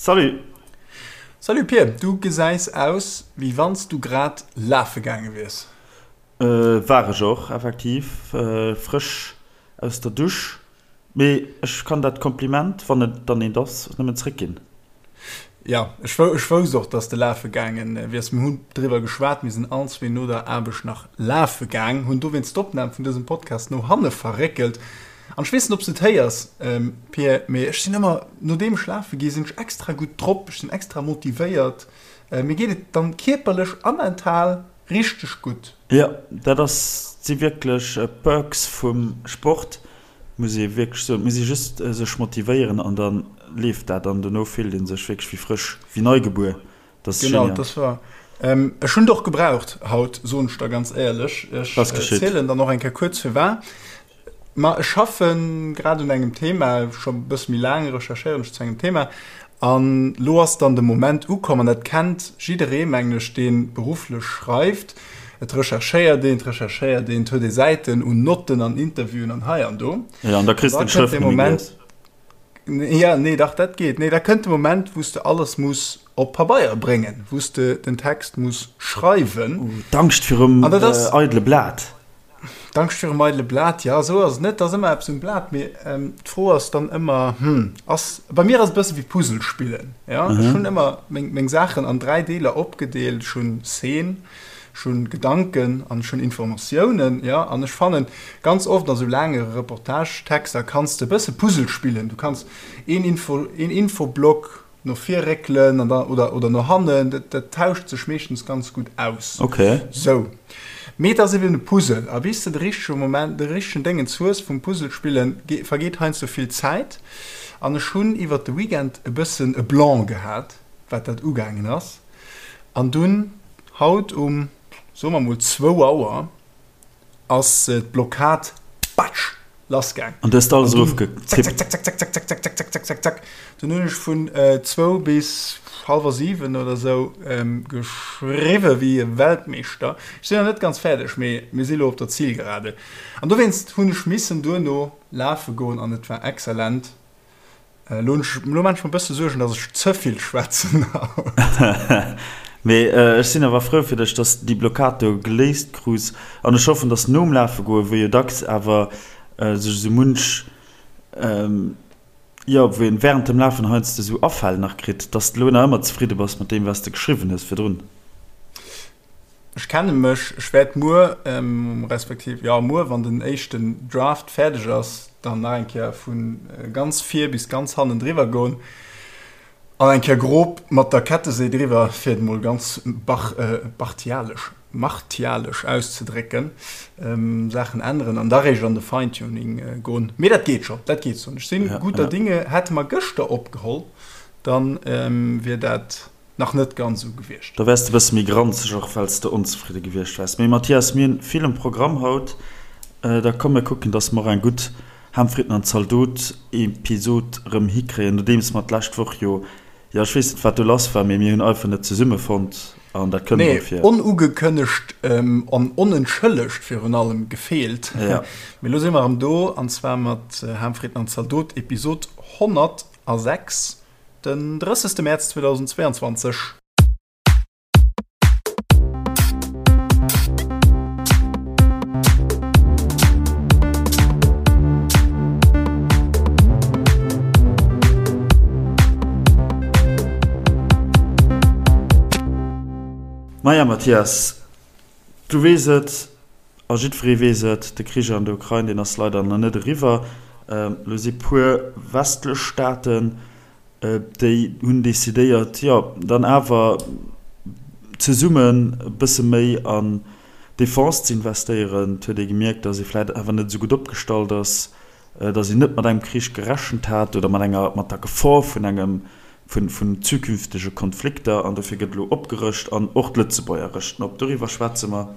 Salut! Salut Pir, du gesäis aus wéi wanns du grad lafe gaange wiers. War ech och, effektiv, frësch aus der Dusch. Mee ech kann dat Kompliment, wann et dann eent ass, nëmmen zréckginn. Jo, ech wousst och, dass de lafe gaange wiers. Mir hunn driwwer geschwat, mir sinn all zwee no der Aarbecht nach lafe gaang, hunn dowéinst d'Opnam vun dësem Podcast no hanne verréckelt. An ech weess net, ob s de et héiers, Pir, mee ech sinn ëmmer, nodeem ech lafe gi sinn ech extra gutt drop, ech sinn extra motivéiert, mir geet et dann kierperlech a mental richteg gutt. Jo, dat ass, si wierklech Perks vum Sport, muss ee wierklech soen. Et muss ee just sech motivéieren an da leeft dat an dono fillt ee sech wierklech wéi frësch, wéi nei gebuer. Dat ass genial. Genau, dat war. Ech hunn et och gebraucht haut, soen ech der ganz éierlech. Ech zielen dann och eng Kéier kuerz firwat. Ma ech schaffe grad un engem Thema, scho e bësse méi laang recherchéieren ech zu engem Thema. An lo ass dann de Moment ukomm, an dat kennt jidderee, mengen ech, dee berufflech schreift, Et recherchéiert een, et recherchéiert een, et huet ee Säiten un Notten an Interviewen an hei an do. Jo, an da kriss de d'Schrëft net méi gelies. Ja, nee, dach, dat geet. Nee, da kënnt de Moment, wou s de alles muss op Pabeier bréngen, wou s de den Text muss schreiwen. Oh, d'Angscht virum eidele Blat. D'Angscht virum eidele Blat, jo, esou ass et net, et ass ëmmer eppes um Blat, mee d'Fro ass dann ëmmer, hm, ass, bei mir ass et e bësse wéi Puzzle spillen, jo, ech hunn ëmmer meng, meng Saachen an 3 Deeler opgedeelt, ech hunn Szene, ech hunn Gedanken an ech hunn Informatiounen, jo, an ech fannen, ganz oft a sou laange Reportagetexter kanns de e bësse Puzzle spillen, du kanns een Info, een Infoblock No vir réckelen an dann, oder, oder no hannen, dat, dat tauscht sech meeschtens ganz gutt aus. Okay. Sou. Mee et ass eben e Puzzle, a bis de de richtege Moment, de richtegen Déngens hues vum Puzzle spillen, ge, vergeet heiansdo vill Zäit. An ech hunn iwwert de Weekend e bëssen e Blanc gehat, wat dat ugaangen ass. An dunn, haut um, soe mer mol zwou Auer, ass d'Blockad, batsch, lassgaang. An du hues alles erofgetippt? Zack, zack, zack, zack, zack, zack, zack, zack, zack, zack, zack. Dunn hunn ech vun zwou bis hallwer 7 oder sou geschriwwe wéi e Weltmeeschter. Ech sinn nach net ganz fäerdeg, mee mir si lo op der Zielgerade. An dowéinst hunn ech missen duerno lafe goen an et war exzellent. Elo hunn ech, elo maan ech mer e bësse Suergen, dass ech ze vill schwätzen haut. Mee ech sinn awer frou fir dech, dass déi Blockad do geléist krus. An ech hoffen, dass nom Lafe goen, wou jo dacks awer sech esou munch, jo, wou een während dem Lafen heiansdo esou Afäll nach kritt, dass de elo nach ëmmer zefridde bass mat deem, wat s de geschriwwen hues virdrun. Ech kenne mech, ech wäert muer, respektiv jo muer, wann den éischten Draft fäerdeg ass, dann nach eng Kéier vu ganz vir bis ganz hannen driwwer goen an eng Kéier grob mat der Kettesee driwwer, fir et emol ganz bartialesch, martialesch auszedrécken, Saachen änneren an da réischt an de Fine-Tuning goen. Mee dat geet scho, dat geet soen ech. Sinn gudder Dinge. Hätte mer gëschter opgeholl, dann wier dat nach net ganz esou gewiescht. Da wäers de bësse méi granzeg, och well s de onzefridde gewiescht wäers. Mee Mathias, mir hunn vill um Programm haut. Da komm mir kucken, dass mer och eng gutt Ham, Fritten an Zaldot Episod erëm hikréien, nodeems mer d'lescht Woch jo, jo ech weess net wat do lass war, mee mir hunn einfach net zesumme fonnt an dat kënnt emol vir. Nee, onugekënnegt an onentschëllegt virun allem gefeelt. Mee elo si mer erëm do, an zwar mat Ham, Fritten an Zaldot Episod 106. Den 30. Mäerz 2022. Maja Mathias, du weess et a jiddweree weess et, de Krich an der Ukrain, deen ass leider nach net eriwwer. Elo si puer westlech Staaten, déi hunn decidéiert, jo dann awer zesummen e bësse méi an d'Defense ze investéieren. Et huet ee gemierkt, datt ee vläicht awer net esou gutt opgestallt ass, datt een net mat engem Krich gerechent hat oder mat enger, mat der Gefor vun engem, vun, vun zukünftege Konflikter. An dofir gëtt elo opgerëscht an och d'Lëtzebuerger rëschten op. Doriwwer schwätze mer.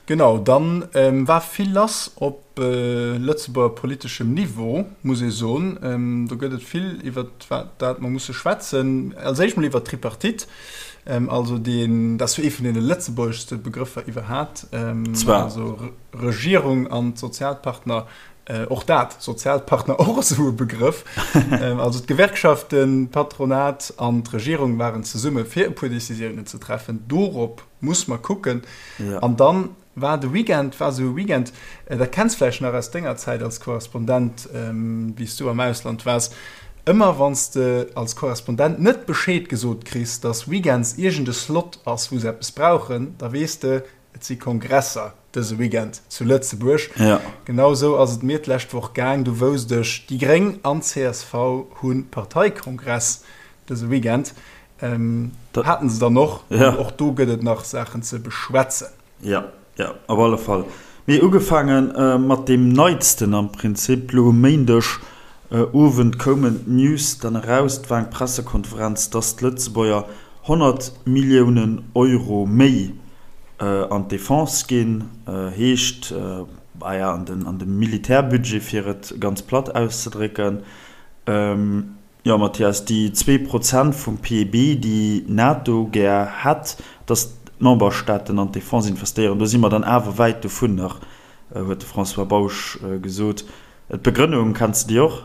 Genau, dann war vill lass op Lëtzebuerger politeschem Niveau, muss ee soen. Do gëtt et vill, iwwer dat mer musse schwätzen. Als éischt mol iwwer d'Tripartite, also deen, dat ass jo ee vun deene lëtzebuergeschste Begrëffer iwwerhat, also Regierung an d'Sozialpartner. Och dat, Sozialpartner, och esou e Begrëff. Also d'Gewerkschaften, d'Patronat an d'Regierung waren zesumme fir e puer Decisiounen ze treffen. Dorop muss mer kucken. An dann war de Weekend, war esou e Weekend, dat kenns vläicht nach aus denger Zäit als Korrespondent, wéi s du am Ausland waars, ëmmer wann s de als Korrespondent net Bescheed gesot kriss, datt weekends iergend e Slot ass, wou se eppes brauchen, da weess de, Et si Kongresser dëse Weekend zu Lëtzebuerg. Ja. Genau esou ass et mir d'lescht Woch gaang. Du wousst ech, déi Gréng an csv hu Parteikongress dëse Weekend. Haten se dann och. Ja. An och do gëtt et nach Saachen ze beschwätzen. Ja, ja, op alle Fall. Mee ugefaange mat deem Neitsten am Prinzip. Lo um Méindeg Owend koumen d'News dann eraus, et war eng Pressekonferenz, dass d'Lëtzebuerger 100 Milliounen Euro méi an d'Defense ginn, heescht, bah ja, an de Militärbudget, fir et ganz platt auszedrécken. Jo, Mathias, déi 2% vum PIB, déi d'NATO gär hätt, dass d'Memberstaaten an d'Defense investéieren, do si mer dann awer wäit dovun nach, huet de François Bausch gesot. D'Begrënnung, kenns de déi och?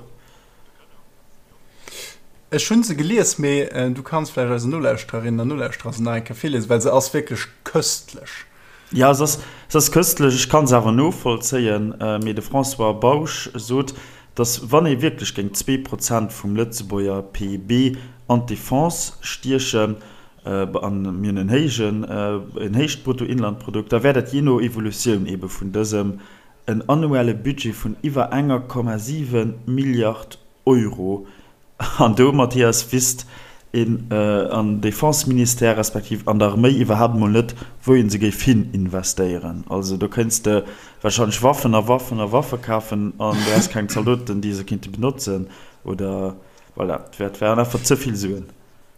Ech hunn se gelies, mee du kanns vläicht eisen Nolauschtererinnen an Nolauschterer se nach eng Kéier virliesen, well se ass wierklech köstlech. Jo, se ass, se ass köstlech. Ech kann se awer novollzéien. Mee de François Bausch sot, datt wann ee wierklech géing 2% vum Lëtzebuerger PIB an d'Defense stiechen, an mir hunn en héijen, en héicht Bruttoinlandprodukt, da wär dat jee no Evolutioun eebe vun dësem en annuelle Budget vun iwwer enger Komma 7 Milliard Euro. An do, Mathias, wisst een am Defense-Ministère respektiv an der Arméi iwwerhaapt emol net, wou ee se géif hin investéieren. Also do kéints de warscheinlech Waffen a Waffen a Waffe kafen an du häss keng Zaldoten, déi se kéinte benotzen. Oder voilà, et wären einfach ze vill Suen.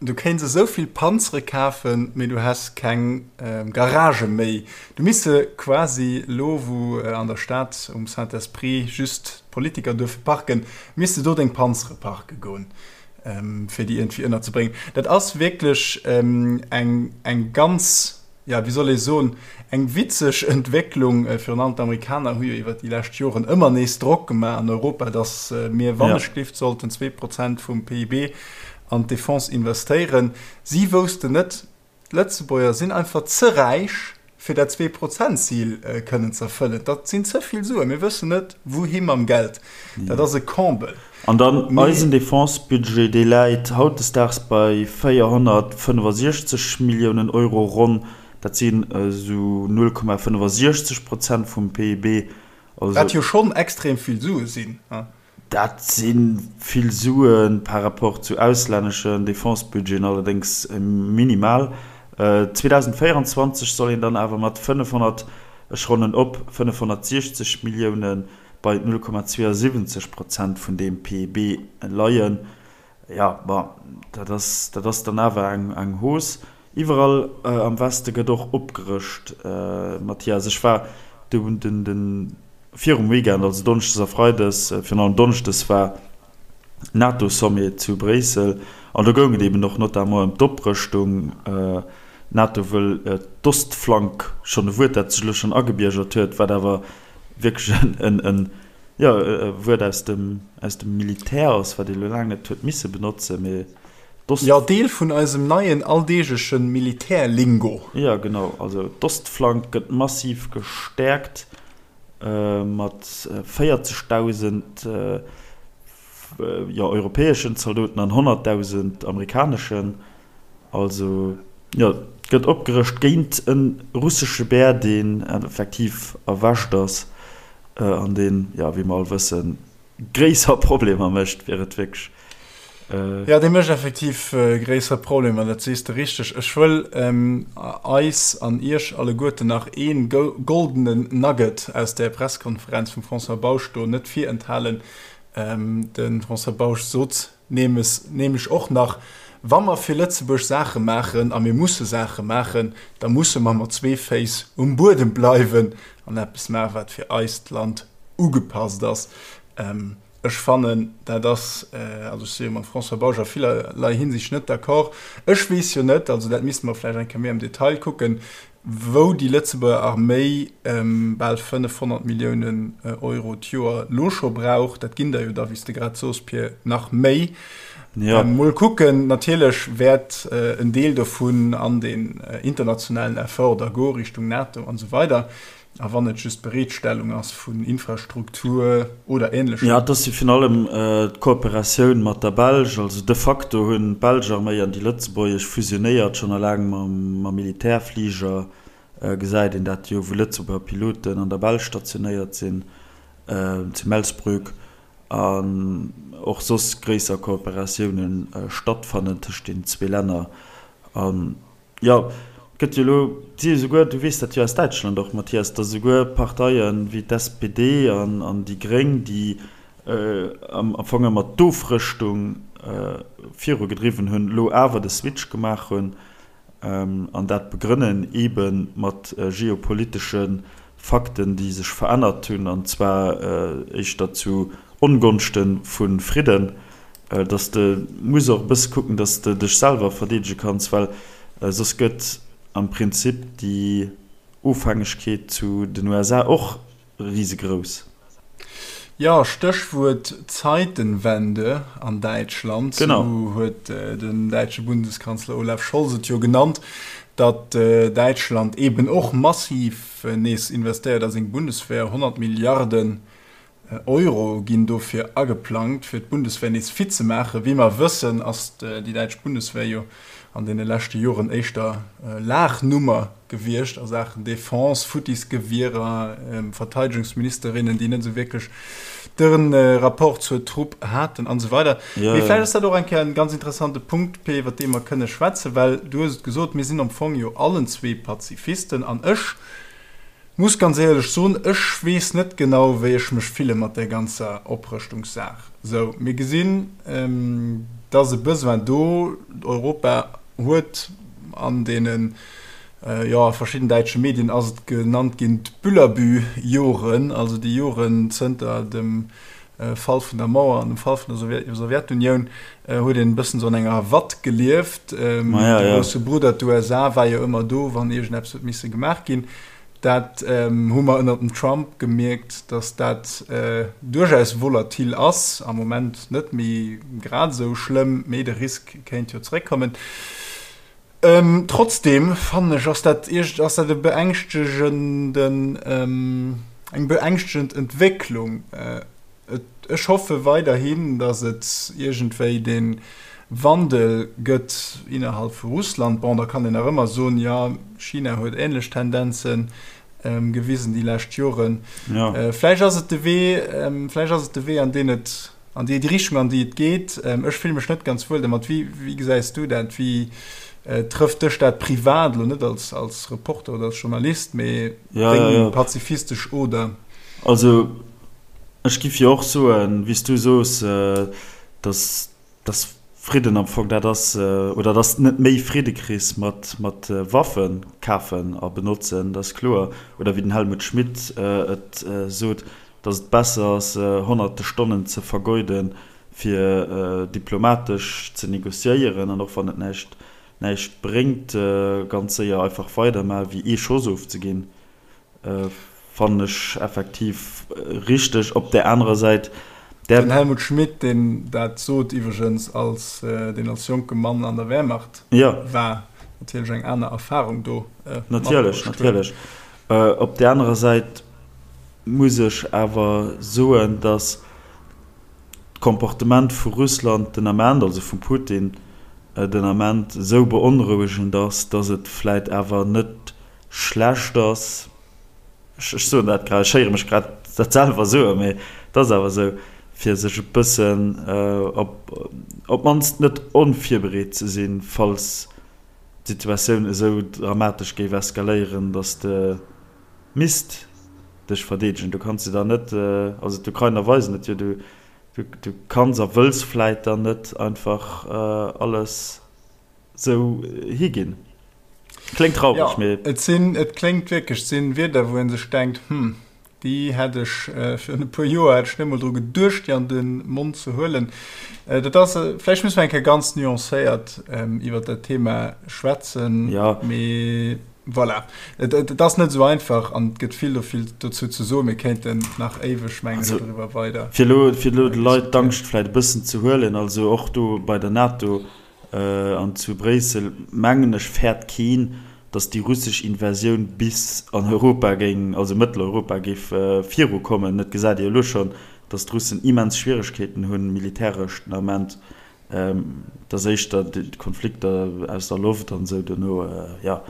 Du kéints esou vill Panzere kafen, mee du häss keng Garagë méi. Du misst se quasi, elo wou an der Stad um Saint-Esprit just d'Politiker duerfe parken, misst de do deng Panzere parke goen, fir déi iergendwéi ënnerzebréngen. Dat ass wierklech eng ganz jo, wéi soll ee soen, eng witzeg Entwécklung. Virun allem d'Amerikaner hu jo iwwer déi lescht Joren ëmmer nees Drock gemaach an Europa, datt mir wannechgelift sollten 2% vum PIB an d'Defense investéieren. Si woussten net, d'Lëtzebuerger sinn einfach ze räich, fir dat Zwee-Prozent-Zil kënnen ze erfëllen. Dat sinn ze vill Suen. Mir wëssen net, wouhi mam Geld. Dat ass e Comble. An dann eisen Defense-Budget, dee läit hautdesdaags bei 465 Milliounen Euro ronn. Dat sinn esou 0,65 Prozent vum PIB. Also, Wat jo schonn extrem vill Sue sinn. Dat si vill Sue par rapport zu auslänneschen Defense-Budgeten, allerdéngs minimal. 2024 soll een dann awer mat 500, ech ronnen op, 560 Milliounen bei 0,72 Prozent vun deem PIB leien. Jo, bon, dat ass, dat ass dann awer eng, eng Hausse. Iwwerall am Weste gëtt och opgerëscht, Mathias. Ech war du den, den, virum Weekend, also Donneschdes a Freides, virun allem Donneschdes war NATO-Sommet zu Bréissel an do goung et eben och notamment ëm d'Oprëschtung. D'NATO wëll d'Ostflank, schonn e Wuert, dat sech elo schonn agebiergert huet, wat awer wierklech en, en, jo, e Wuert aus dem, aus dem Militär ass, wat ee lo laang net huet misse benotzen, mee d'Ost. Jo, Deel vun eisem neien alldeegleche Militärlingo. Jo, genau. Also d'Ostflank gëtt massiv gestäerkt mat 40.000, jo, europäeschen Zaldoten an 100.000 amerikaneschen. Also, jo, et gëtt opgerëscht géint e russesche Bär, deen effektiv erwächt ass an deen, jo, wéi mer all wëssen, gréisser Problemer mécht, fir et wierklech. Jo, dee mécht effektiv gréisser Problemer, dat sees de richteg. Ech wëll eis an iech alleguerten nach ee goldenen Nugget aus där Presskonferenz vum François Bausch do net virenthalen. De François Bausch sot nämlech och nach, Wa mer fir Lëtzebuerg Saache maachen, a mir musse Saache maachen, da musse mer mat zwee Féiss um Buedem bleiwen an eppes maachen, wat fir eist Land ugepasst ass. Ech fannen, dat ass, also ech si jo mam François Bausch a villerlei Hinsicht net d'accord. Ech weess jo net, also dat misste mer vläicht eng Kéier méi am Detail kucken, wou déi Lëtzebuerger Arméi bal 500 Milliounen Euro d'Joer lo scho brauch. Dat ginn der jo da, wéi s de grad sos, Pir, nach méi. Mol kucken, natierlech wäert en Deel dovun an deen internationalen Effort da goe Richtung NATO an esou weider. A wann et just d'Bereetstellung ass vun Infrastruktur oder Ähnlechem. Jo, et ass jo virun allem d'Kooperatioun mat der Belsch. Also de facto hunn d'belsch Arméi an déi lëtzebuergesch fusionéiert. Schonn eleng mam Militärfliger gesäit een dat jo, wou Lëtzebuerger Piloten an der Belsch stationéiert sinn, zu Melsbroek, an och soss gréisser Kooperatioune stattfannen tëscht den zwee Länner. An Jo, et gëtt jo elo, et si jo souguer, du weess dat jo aus Däitschland och, Mathias, datt esouguer Parteie wéi d'SPD an déi Gréng, déi am Fong ëmmer d'Ofrëschtung virugedriwwen hunn, elo awer de Switch gemaach hunn an dat begrënnen eebe mat geopolitesche Fakten, déi sech verännert hunn, an zwar éischter zu Ongonschte vu Fridden, dass de muss och e bësse kucken, dass de dech selwer verdeedege kanns, well soss gëtt am Prinzip déi Ofhängegkeet zu den USA och risegrouss. Jo, Stéchwuert Zeitenwende an Däitschland, esou huet den däitsche Bundeskanzler Olaf Scholz et jo genannt, datt Däitschland eeben och massiv nees investéiert a seng Bundeswehr, 100 Milliarden Euro ginn dofir ageplangt, fir d'Bundeswehr nees fit ze maachen. Wéi mer wëssen, ass déi däitsch Bundeswehr jo an deene leschte Joren éischter Laachnummer gewiescht a Saachen Defense, futtis Gewierer, Verteidegungsministerinnen, déi net esou wierklech de Rapport zur Trupp haten an esou weider. Mee vläicht ass dat och eng Kéier en ganz interessante Punkt, Pé, iwwer dee mer kënne schwätzen, well du hues et gesot, mir sinn am Fong jo allen zwee Pazifisten an ech, Muss ganz éierlech soen, ech weess net genau wéi ech mech fille mat där ganzer Oprëschtungssaach. Sou, mir gesinn, et ass e Besoin do, Europa huet an deenen, jo a verschidden däitsche Medien ass et genannt ginn, d'Büllerbü-Joren, also déi Joren zënter dem Fall vun der Mauer an dem Fall vun der Sowjetunioun, huet een e bëssen esou an enger Watt gelieft. De grousse Brudder, d'USA, war jo ëmmer do, wann iergendeppes huet misse gemaach ginn. Dat hu mer ënner dem Trump gemierkt, datt dat duerchaus volatil ass. Am Moment net méi grad esou schlëmm, mee de Risk kéint jo zeréckkommen. Trotzdeem fannen ech, ass dat ass dat e beängschtegenden, eng beängschtegend Entwécklung. Et, ech hoffe weiderhin, datt et iergendwéi dee Wandel gëtt innerhalb vu Russland. Bon, da kann een nach ëmmer soen, jo, China huet änlech Tendenze gewisen déi lescht Joren. Vläicht ass et de Wee, vläicht ass et de Wee, an deen et An déi Richtung, an déi et geet. Ech fille mech net ganz wuel domat. Wéi, wéi gesäis du dat? Wéi trëfft dech dat privat, elo net als, als Reporter oder als Journalist, mee deng pazifistesch Oder? Also ech giff jo och soen, wéi s du soos, dass, dass Fridden am Fong dat ass, oder dass net méi Fridde kriss mat, mat Waffe kafen a benotzen, dat ass kloer. Oder wéi den Helmut Schmidt et sot, dass et besser ass, honnerte Stonnen ze vergeuden, fir diplomatesch ze négociéieren, an och wann et näischt, näischt bréngt, ganz séier einfach weidermaachen, wéi ee Schoss ofzeginn, fannen ech effektiv richteg. Op där anerer Säit, där. Den Helmut Schmidt, deen dat sot iwwregens, als deen als jonke Mann an der Wehrmacht war, natierlech eng aner Erfahrung do matbruecht huet. Natierlech, natierlech. Op där anerer Säit muss ech awer soen, datt d'Comportement vu Russland den Ament, also vum Putin den Ament, esou beonrouegend ass, datt et vläit awer net schlecht ass, ech soen dat grad, ech héiere mech grad dat selwer soen, mee et ass awer esou, fir sech e bëssen op d'mannst net onvirbereet ze sinn, falls d'Situatioun esou dramatesch géif eskaléieren, datt de misst dech verdeedegen. Du kanns de dann net, also d'Ukrainer weisen et jo, du du kanns a wëlls vläit dann net einfach alles sou higinn. Kléngt traureg, mee. Jo, et sinn, et kléngt wierklech, et sinn Wierder, wou ee sech denkt, hm. Déi hätt ech virun e puer Joer hätt ech net emol dru geduecht, déi an de Mond ze huelen. Dat ass, vläicht musse mer eng Kéier ganz nuancéiert iwwert dat Thema schwätzen. Jo. Mee voilà, et ass net esou einfach an et gëtt vill dovill dozou ze soen. Mir kéinten nach éiweg, mengen ech, doriwwer weider Fir elo, fir elo de Leit d'Angscht vläicht e bëssen ze huelen, also och do bei der NATO an zu Bréissel, mengen ech, fäert keen, datt déi russesch Invasioun bis an Europa géing, also Mëtteleuropa géif virukommen. Et gesäit ee jo elo schonn, datt d'Russen immens Schwieregkeeten hunn, militäresch den Ament. Et ass éischter d'Konflikter aus der Loft an esou dono, jo.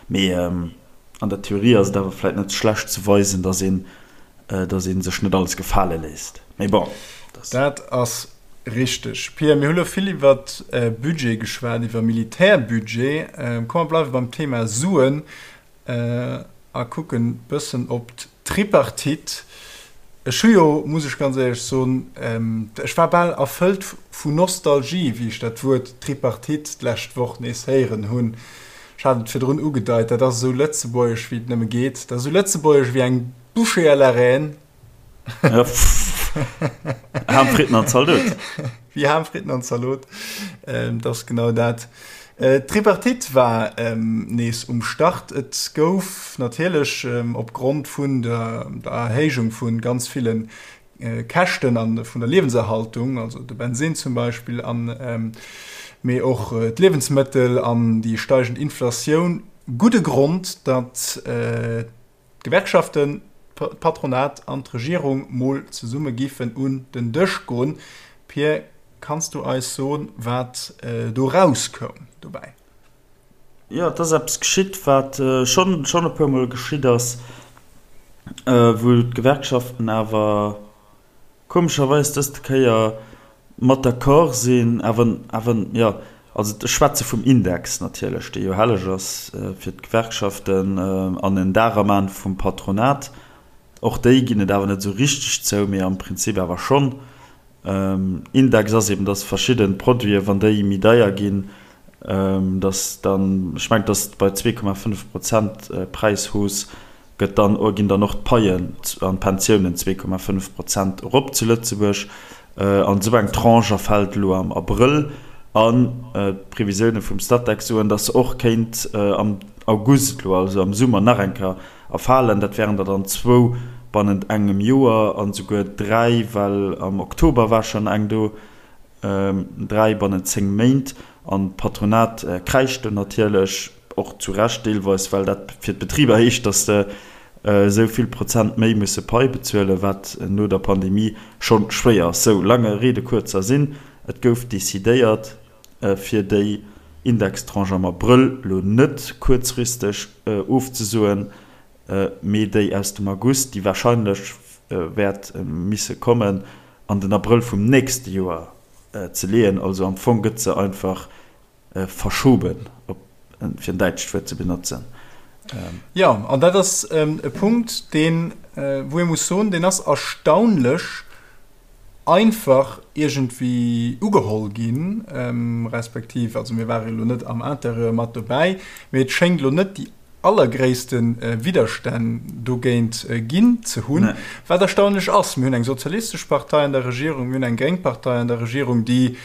Mee an der Theorie ass et awer vläit net schlecht ze weisen, datt een, datt ee sech net alles gefale léisst. Mee bon, dat. Dat ass richteg. Pia, mir hu lo vill iwwer Budget geschwat, iwwer Militärbudget. Komm mer bleiwe beim Thema Suen a kucken bëssen op d'Tripartite. Ech hu jo, muss ech ganz éierlech soen, ech war bal erfëllt vu Nostalgie, wéi ech dat Wuert Tripartite d'lescht Woch nees héieren hunn. Ech hat et virdrun ugedeit, dat ass esou lëtzebuergesch, wéi et nëmme geet. Dat ass esou lëtzebuergesch wéi eng Bouchée à la reine. Ham, Fritten an Zalot. Wéi Ham, Fritten an Zalot, dat ass genau dat. D'Tripartite war nees um Start. Et gouf natierlech opgrond vun der Erhéijung vu ganz ville Käschten a vun der Liewenserhaltung, also de Bensinn zum Beispill, an mee och d'Liewensmëttel an déi steigend Inflatioun, gudde Grond, datt d'Gewerkschaften, d'Patronat an d'Regierung mol zesumme giffen un den Dësch goen. Pir, kanns du eis soen, wat do rauskoum dobäi? Jo, et ass eppes geschitt, wat schonn schonn e puermol geschitt ass, wou d'Gewerkschaften awer komescherweis dëst Kéier mat d'accord sinn, awer, awer, jo, also ech schwätze vum Index natierlech, dee jo helleg ass fir d'Gewerkschaften an en Dar am An vum Patronat. Och déi ginn et awer net esou richteg zou, mee am Prinzip awer schonn. Index ass eben, dass verschidde Produiten, wann déi méi deier ginn, dass dann, ech mengen, dass bei 2,5 Prozent Präishausse gëtt dann, ginn dann och d'Paien an d'Pensiounen 2,5 Prozent erop zu Lëtzebuerg. An esou eng Tranche erfält elo am Abrëll. An d'Previsioune vum Statec soen, dass se och kéint am August elo, also am Summer, nach eng Kéier erfalen. Dat wären der dann zwou bannent engem Joer an esouguer dräi, well am Oktober war schonn eng do. 3 bannent 10 Méint. An d'Patronat kräischt do natierlech, och zu Recht deelweis, well dat fir d'Betriber heescht, datt se esou vill Prozent méi musse Pai bezuelen, wat no der Pandemie scho schwéier ass. Sou, lange Rede, kurzer Sinn, et gouf decidéiert, fir déi Indextranche am Abrëll lo net kuerzfristeg ofzesoen, mee déi aus dem August, déi warscheinlech wäert misse kommen, an den Abrëll vum nächste Joer ze leeën. Also am Fong gëtt se einfach verschoben, fir en däitscht Wuert ze benotzen. Jo, an dat ass e Punkt, deen, wou ee muss soen, deen ass erstaunlech einfach iergendwéi ugeholl ginn, respektiv, also mir ware elo net am Interieur mat dobäi, mee et schéngt elo net déi allergréisste Widderstänn dogéint ginn ze hunn, wat erstaunlech ass. Mir hunn eng sozialistesch Partei an der Regierung, mir hunn eng gréng Partei an der Regierung, déi,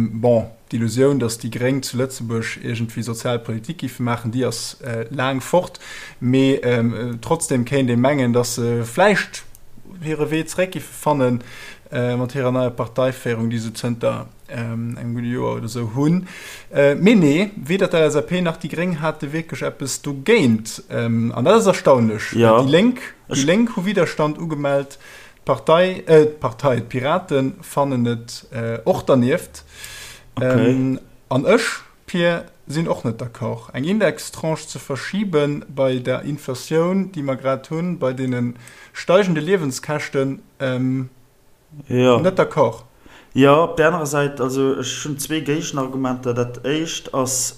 bon, d'Illusioun, datt déi Gréng zu Lëtzebuerg iergendwéi sozial Politik géife maachen, déi ass laang fort, mee trotzdem kéint ee mengen, datt se vläicht hire Wee zeréck géife fanne mat hirer neier Parteiféierung, déi se zënter engem gudde Joer oder esou hunn. Mee nee, weder d'LSAP nach déi Gréng hate wierklech eppes dogéint. An dat ass erstaunlech. Ja. Déi Lénk, déi Lénk hu Widerstand ugemellt. D'Partei, äh, d'Partei, d'Piraten fannen et och dernieft. Okay. An ech, Pir, sinn och net d'accord, eng Indextranche ze verschiben bei der Inflatioun, déi mer grad hunn, bei deene steigende Liewenskäschten. Jo. Net d'accord. Jo, op där anerer Säit, also ech hunn zwee Géigenargumenter. Dat éischt ass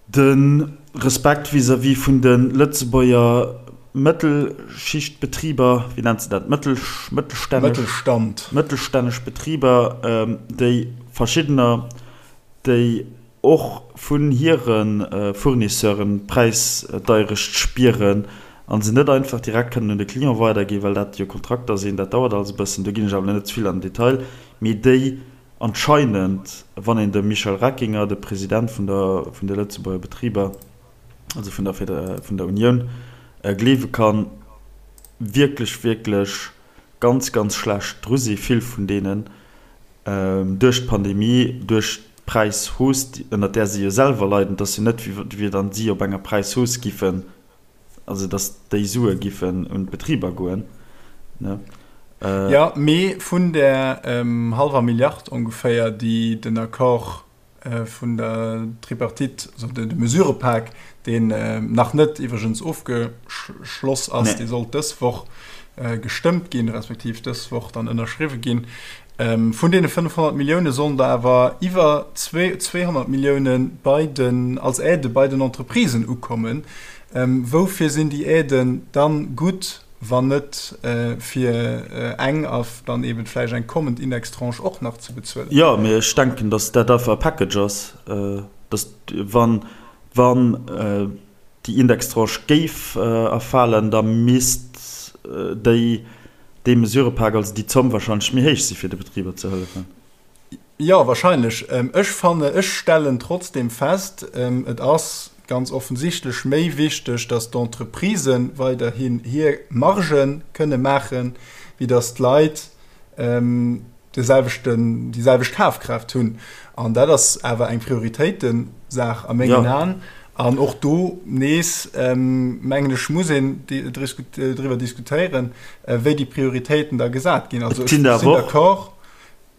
de Respekt vis-à-vis vun de Lëtzebuerger Mëttelschichtbetriber, wéi nennt se dat, mëttelstänneg? Mëttelstand. Mëttelstänneg Betriber, déi verschiddener, déi och vun hire Fournisseuren d'Präisdeierecht spieren. a se net einfach direkt kënnen un de Client weiderginn, well dat jo Kontrakter sinn, dat dauert alles e bëssen, do ginn ech awer net ze vill an den Detail, mee déi anscheinend, wann een dem Michel Reckinger, de President vun der vun de Lëtzebuerger Betriber, also vun der vun der Unioun, gleewe kann, wierklech, wierklech ganz, ganz schlecht dru si vill vun deenen, duerch d'Pandemie, duerch d'Präishausse, ënnert där si jo selwer leiden, et ass jo net, wéi wann si op enger Präishausse giffen, also datt déi Sue giffen un d'Betriber goen, ne? Jo, mee vun där hallwer Milliard ongeféier, déi den Accord vun der Tripartite, also de Mesurëpak, deen nach net iwwregens ofgeschloss ass, dee sollt dës Woch gestëmmt ginn, respektiv dës Woch dann ënnerschriwwe ginn. Vun deene 500 Millioune sollen der awer iwwer 200 Millioune bei den, als Aide bei den Entreprisen ukommen. Woufir sinn déi Aiden dann gutt? wann net fir eng a dann eben vläicht eng kommend Indextranche och nach ze bezuelen. Jo, mee ech denken, datt dat einfach e Package ass, datt wann, wann déi Indextranche géif erfalen, da misst déi, dee Mesurepak, also déi Zomm wahrscheinlech méi héich si fir de Betriber ze hëllefen. Jo, wahrscheinlech. Ech fanne, ech stellen trotzdem fest, et ass ganz offensichtlech méi wichteg, datt d'Entreprisë weiderhin hir Marge kënne maachen, wéi datt d'Leit de selwechten, déi selwecht Kafkraaft hunn. An dat ass awer eng Prioritéitensaach a mengen Aen. An och do nees, mengen ech, muss een driwwer diskutéieren, wéi déi Prioritéiten da gesat ginn. Also ech sinn d'accord.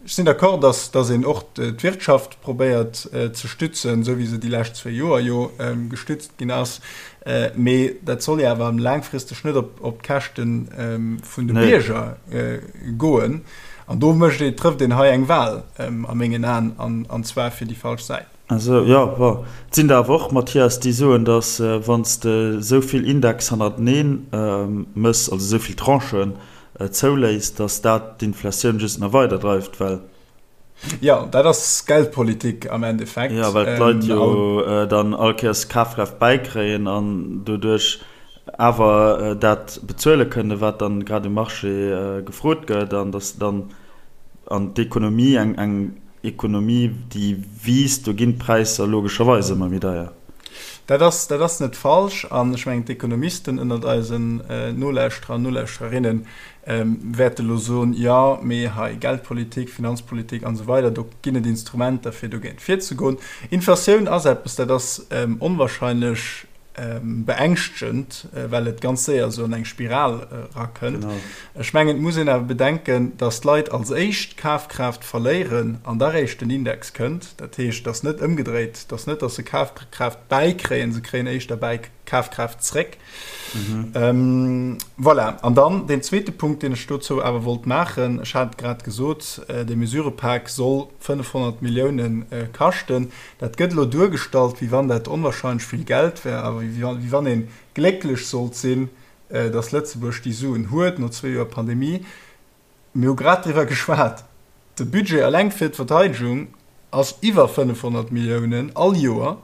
Ech sinn d'accord, dass, dass een och d'Wirtschaft probéiert ze stützen, esou wéi se déi lescht zwéi Joer jo gestützt ginn ass. Mee dat soll jo awer laangfristeg net op, op d'Käschte vun de Bierger goen. An do mécht ee, trëfft een hei eng Wahl a mengen Aen, an, an zwar fir déi falsch Säit. Also, jo, bon, et sinn der awer och, Mathias, déi soen, dass wann s de esou vill Index hannertenee mëss, also esou vill Tranchen, zouléisst, datt dat d'Inflatioun just nach weider dreift, well. Jo, dat ass Geldpolitik am Endeffekt. Jo, well d'Leit jo dann all Kéiers Kafkraaft bäikréien an doduerch awer dat bezuele kënnen, wat dann grad um Marché gefrot gëtt, an datt dann an d'Ekonomie, eng Ekonomie, déi wiisst, do ginn d'Präisser logescherweis ëmmer méi deier. Dat ass, dat ass net falsch. An ech mengen, d'Ekonomisten ënnert eisen Nolauschterer an Nolauschtererinne wäerte elo soen, Jo, mee hei Geldpolitik, Finanzpolitik an esou weider, do ginn et Instrumenter, fir dogéint virzegoen. Inflatioun ass eppes, dat ass onwahrscheinlech beängschtegend, well et ganz séier esou an eng Spiral erakënnt. Ech mengen, et muss een awer bedenken, datt d'Leit als éischt Kafkraaft verléieren an da réischt den Index kënnt. Dat heescht, et ass net ëmgedréit, et ass net, datt se Kafkraaft bäikréien, se kréien éischter bäi Kafkraaft zréck. Voilà. An dann deen zweete Punkt, deen ech dozou awer wollt maachen, ech hat et grad gesot, dee Mesurëpak soll 500 Milliounen kaschten. Dat gëtt elo duergestallt, wéi wann dat onwahrscheinlech vill Geld wär a wéi wann ee glécklech sollt sinn, datt Lëtzebuerg déi Suen huet no zwee Joer Pandemie. Mir hu grad driwwer geschwat, de Budget eleng fir d'Verteidegung ass iwwer 500 Milliounen all Joer.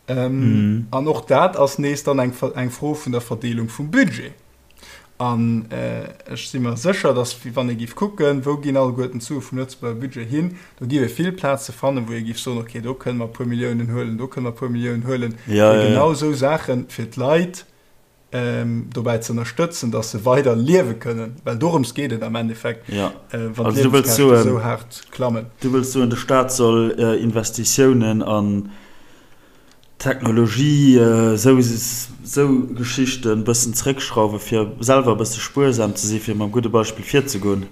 An och dat ass nees dann eng Fro vun der Verdeelung vum Budget. An ech si mer sécher, datt wann ee géif kucken, wou ginn alleguerten d'Sue vum Lëtzebuerger Budget hin, do géif ee vill Plaze fannen, wou ee géif soen, okay, do kënne mer e puer Milliounen huelen, do kënne mer e puer Milliounen huelen, fir genau esou Saache fir d'Leit dobäi ze ënnerstëtzen, datt se weider liewe kënnen. Well dorëms geet et am Endeffekt, wann d'Liewenskäschte esou haart klammen. Du wëlls soen, de Staat soll Investitiounen an Technologie, esou esou Geschichten bëssen zréckschrauwen, fir selwer e bësse spuersam ze sinn, fir mam gudde Beispill virzegoen.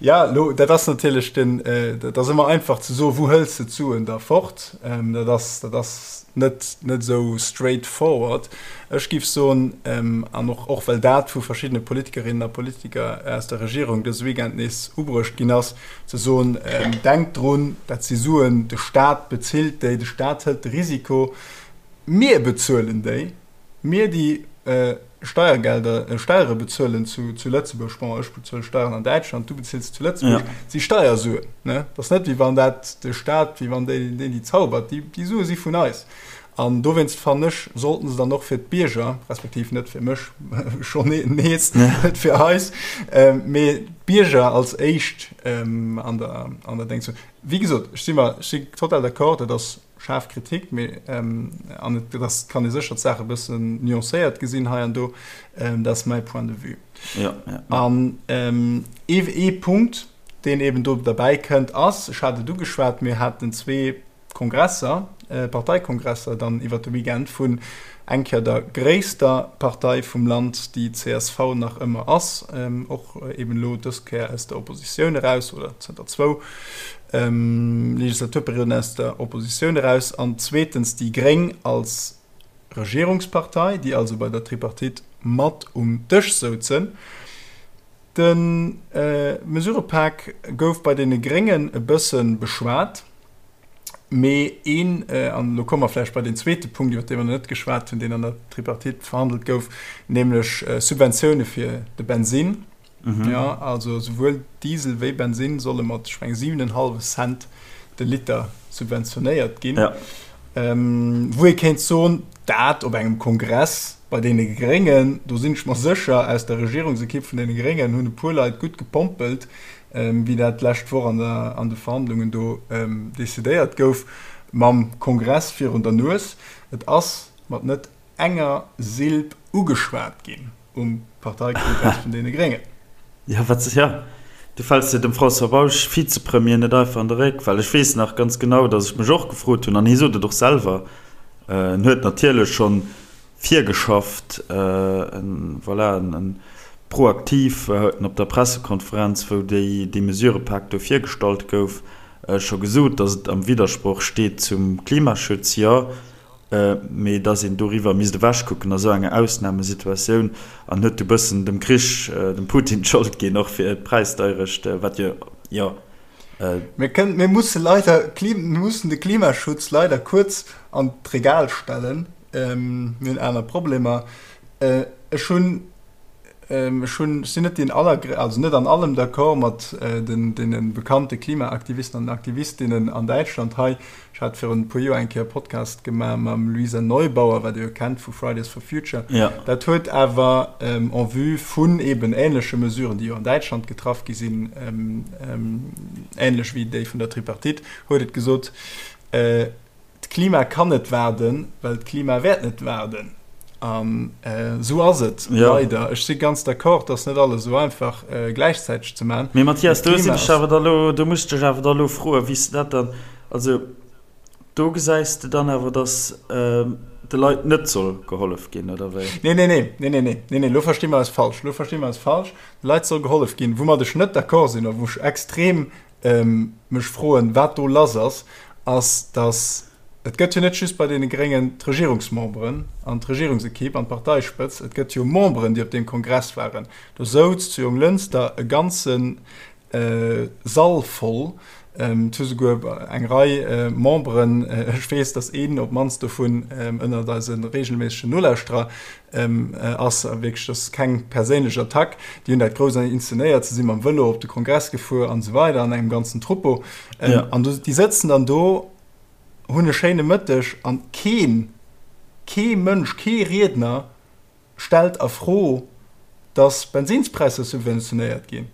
Ja, lo, dat ass natierlech den, dat ass ëmmer einfach ze soen, wou hëls de d'Suen da fort? Dat ass, dat ass net, net esou straight forward. Ech géif soen, an och, och well dat vu verschiddene Politikerinnen a Politiker aus der Regierung dëse Weekend nees ubruecht ginn ass, ze soen, Denkt drun, dat si Suen, de Staat bezilt déi, de Staat hëlt de Risiko, mir bezuelen déi, mir déi Steiergelder, Steiere bezuelen zu Lëtzebuerg, bon, ech bezuele Steieren an Däitschland, du bezills zu Lëtzebuerg, dat si Steiersuen. Et ass net, wéi wann dat de Staat, wéi wann deen déi zaubert, déi Sue si vun eis. An dowéinst fannen ech, sollten se dann och fir d'Bierger, respektiv net fir mech, schonn nees, net fir eis, mee d'Bierger als éischt an der, an der Déngs hunn. Wéi gesot, ech si mer, ech si total d'accord, dat ass schaarf Kritik, mee, an et ass, kann ee sécher d'Saach e bëssen nuancéiert gesinn hei an do, dat ass mäi Point de vue. An ee Punkt, deen eben do derbäi kënnt, ass, ech hat et ugeschwat, mir haten zwee Kongresser, Parteikongresser dann iwwer de Weekend vun eng Kéier der gréisster Partei vum Land, déi csv nach ëmmer ass, och eben elo dës Kéier aus der Oppositioun eraus oder zënter zwou Legislaturperioden aus der Oppositioun eraus, an zweetens déi gréng als Regierungspartei, déi also bei der Tripartite mat um Dësch souzen. De Mesurëpak gouf bei deene Gréngen e bësse beschwat, mee een, an elo komme mer vläicht bei deen zweete Punkt, iwwer dee mer nach net geschwat hunn, deen an der Tripartite verhandelt gouf, nämlech Subventioune fir de Bensinn. Jo, also souwuel Diesel wéi Bensinn solle mat, ech mengen, 7,5 Cent de Liter subventionéiert ginn. Wou ee kéint soen, dat op engem Kongress bei deene Gréngen, do sinn ech mer sécher, aus der Regierungsekipp vun deene Gréngen hunn e puer Leit gutt gepompelt, wéi dat d'lescht Woch an der, an de Verhandlungen do decidéiert gouf, mam Kongress virun der Nues. Et ass mat net enger Silb ugeschwat ginn um Parteikongress vun deene Gréngen. Jo, wat, jo, du fäls jo dem François Bausch, Vizepremier, net einfach an de Réck, well ech weess nach ganz genau, datt ech mech och gefrot hunn, an hie sot et och selwer, en huet natierlech schonn virgeschafft, en, voilà, en proaktiv huet en op der Pressekonferenz, wou déi, dee Mesurepak do virgestallt gouf, scho gesot, datt et am Widdersproch steet zum Klimaschutz, jo. mee dass een doriwwer misst ewechkucken a sou enger Ausnamesituatioun an huet du bëssen dem Krich, dem Putin d'Schold ginn, och fir d'Präisdeierecht, wat jo, jo. Mir kënnen, mir musse leider, mir mussen de Klimaschutz leider kuerz an d'Regal stellen, mir hunn aner Problemer. Ech hunn Ech hunn, ech sinn net deen aller, also net an allem d'accord mat den deene bekannte Klimaaktivisten an Aktivistinnen an Däitschland hei. Ech hat virun e puer Joer eng Kéier e Podcast gemaach mam Luisa Neubauer, wat Dir jo kennt vu Fridays for Future. Dat huet awer en vue vun eben änleche Mesuren, déi jo an Däitschland getraff gi sinn, änlech wéi déi vun der Tripartite, huet et gesot, D'Klima kann net waarden, well d'Klima wäert net waarden. An esou ass et leider. Ech si ganz d'accord, dass net alles esou einfach gläichzäiteg ze maachen. Mee Mathias, do sinn ech awer da lo, do muss ech dech awer da lo froen, wéi s de dat dann, also do gesäis de dann awer, dass de Leit net soll gehollef ginn, oder wéi? Nee, nee, nee, nee, nee, nee, nee, nee, lo versti mer eis falsch, lo versti mer eis falsch. De Leit soll gehollef ginn. Woumat ech net d'accord sinn a wou ech extrem mech froen, wat do lass ass, ass, datt, et gëtt jo net just bei deene Gréngen d'Regierungsmemberen an d'Regierungsekipp an d'Parteispëtz, et gëtt jo Memberen, déi op deem Kongress waren. Do souz zu Jonglënster e ganze Sall voll, et hu souguer eng Rei Memberen, ech weess, datt een op d'mannst dovun ënnert eise reegelméissegen Nolauschterer ass wierklech, dat ass keng perséinlech Attack, déi hunn dat grouss inszenéiert, se si mam Vëlo op de Kongress gefuer an esou weider an engem ganzen Troupeau. An déi sëtzen dann do, hunn e schéine Mëtteg an keen, kee Mënsch, kee Riedner stellt a Fro, datt Bensinnspräisser subventionéiert ginn,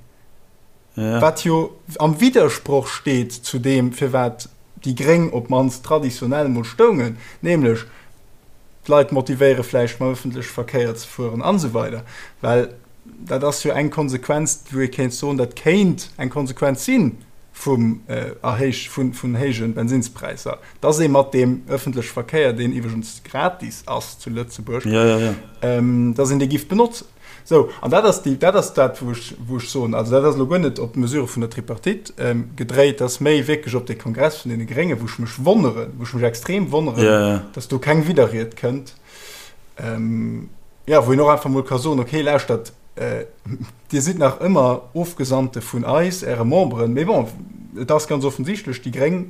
wat jo am Widdersproch steet zu deem, firwat déi Gréng op d'mannst traditionell mol stoungen, nämlech d'Leit motivéiere vläicht mam ëffentleche Verkéier ze fueren an esou weider. Well dat ass jo eng Konsequenz, wou ee kéint soen, dat kéint eng Konsequenz si vum Erhéich vun héije Bensinnspräisser, dass ee mat deem ëffentleche Verkéier, deen iwwregens gratis ass zu Lëtzebuerg, dass een dee giff benotzen. Sou, an dat ass déi, dat ass dat, wou ech, wou ech soen, also dat ass elo guer net op d'Mesure vun der Tripartite gedréit, dat ass méi wierklech op dee Kongress vun deene Gréngen, wou ech mech wonneren, wou ech mech extrem wonneren, dass do keng Widderried kënnt, jo, wou een och einfach emol ka soen, okay, lauschtert, Dir sidd nach ëmmer Ofgesandte vun eis, Äre Memberen, mee bon, et ass ganz offensichtlech, déi gréng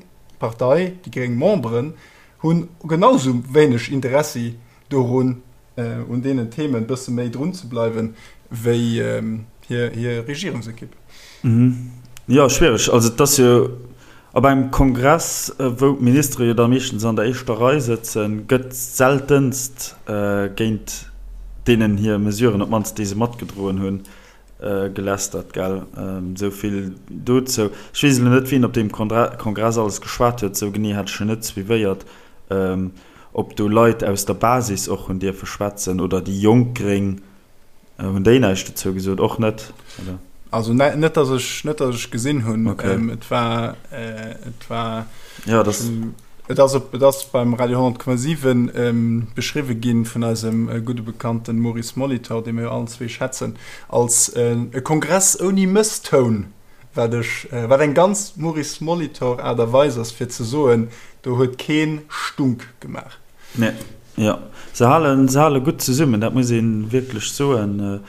Partei, déi gréng Memberen hunn genau sou wéineg Interessi dorun, un deenen Themen e bësse méi drun ze bleiwen, wéi hir Regierungsekipp. Jo, schwiereg. Also et ass jo. Op engem Kongress, wou d'Ministere jo da meeschtens an der éischter Rei sëtzen, gëtt seltenst géint deenen hir Mesuren, op d'mannst déi se matgedroen hunn, gelästert, gell? Esou vill dozou. Ech weess elo net, wien op deem Kongress alles geschwat huet, esou genee hat ech en net suivéiert, ob do Leit aus der Basis och hunn dierfe schwätzen oder déi jonk Gréng. Hunn déi näischt dozou gesot? Och net, oder? Also net, dass ech, net, dass ech gesinn hunn. Okay. Ähm, et war, äh, et war. Ja, das. Et ass, op, et ass beim Radio 10,7 ähm, beschriwwe ginn vun eisem äh, gudde Bekannten Maurice Molitor, dee mir jo allen zwee schätzen, als äh, e Kongress ouni Mësstoun, wat ech, äh, wat eng ganz Maurice Molitor Aart a Weis ass fir ze soen, do huet keen Stunk gemaach. Nee, jo. Se halen, se hale gutt zesummen, dat muss ee wierklech soen.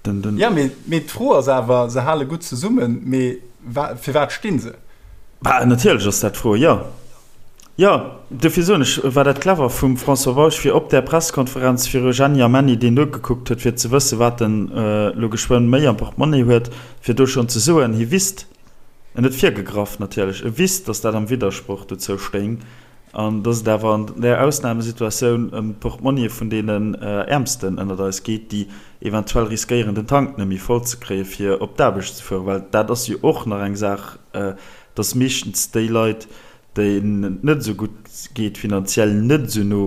Den, den. Ja, mee, mee d'Fro ass awer, se hale gutt zesummen, mee wa, fir wat sti se? Bah, natierlech ass dat d'Fro, jo. Jo, dofir soen ech, war dat clever vum François Bausch, fir op där Presskonferenz viru Jenny a Menny, deen nogekuckt huet, fir ze wëssen, wat en elo geschwënn méi am Portemonnaie huet, fir do schonn ze soen, hie wisst, en huet virgegraff natierlech, e wisst, datt dat am Widdersproch dozou stéing, An dass et awer an där Ausnamesituatioun ëm d'Portmonnië vun deenen Äermsten ënnert eis geet, déi eventuell riskéieren, den Tank net méi voll ze kréien, fir op d'Aarbecht ze fueren. Well dat ass jo och nach eng Saach, dass meeschtens déi Leit, deenen et net esou gutt geet finanziell, net esou no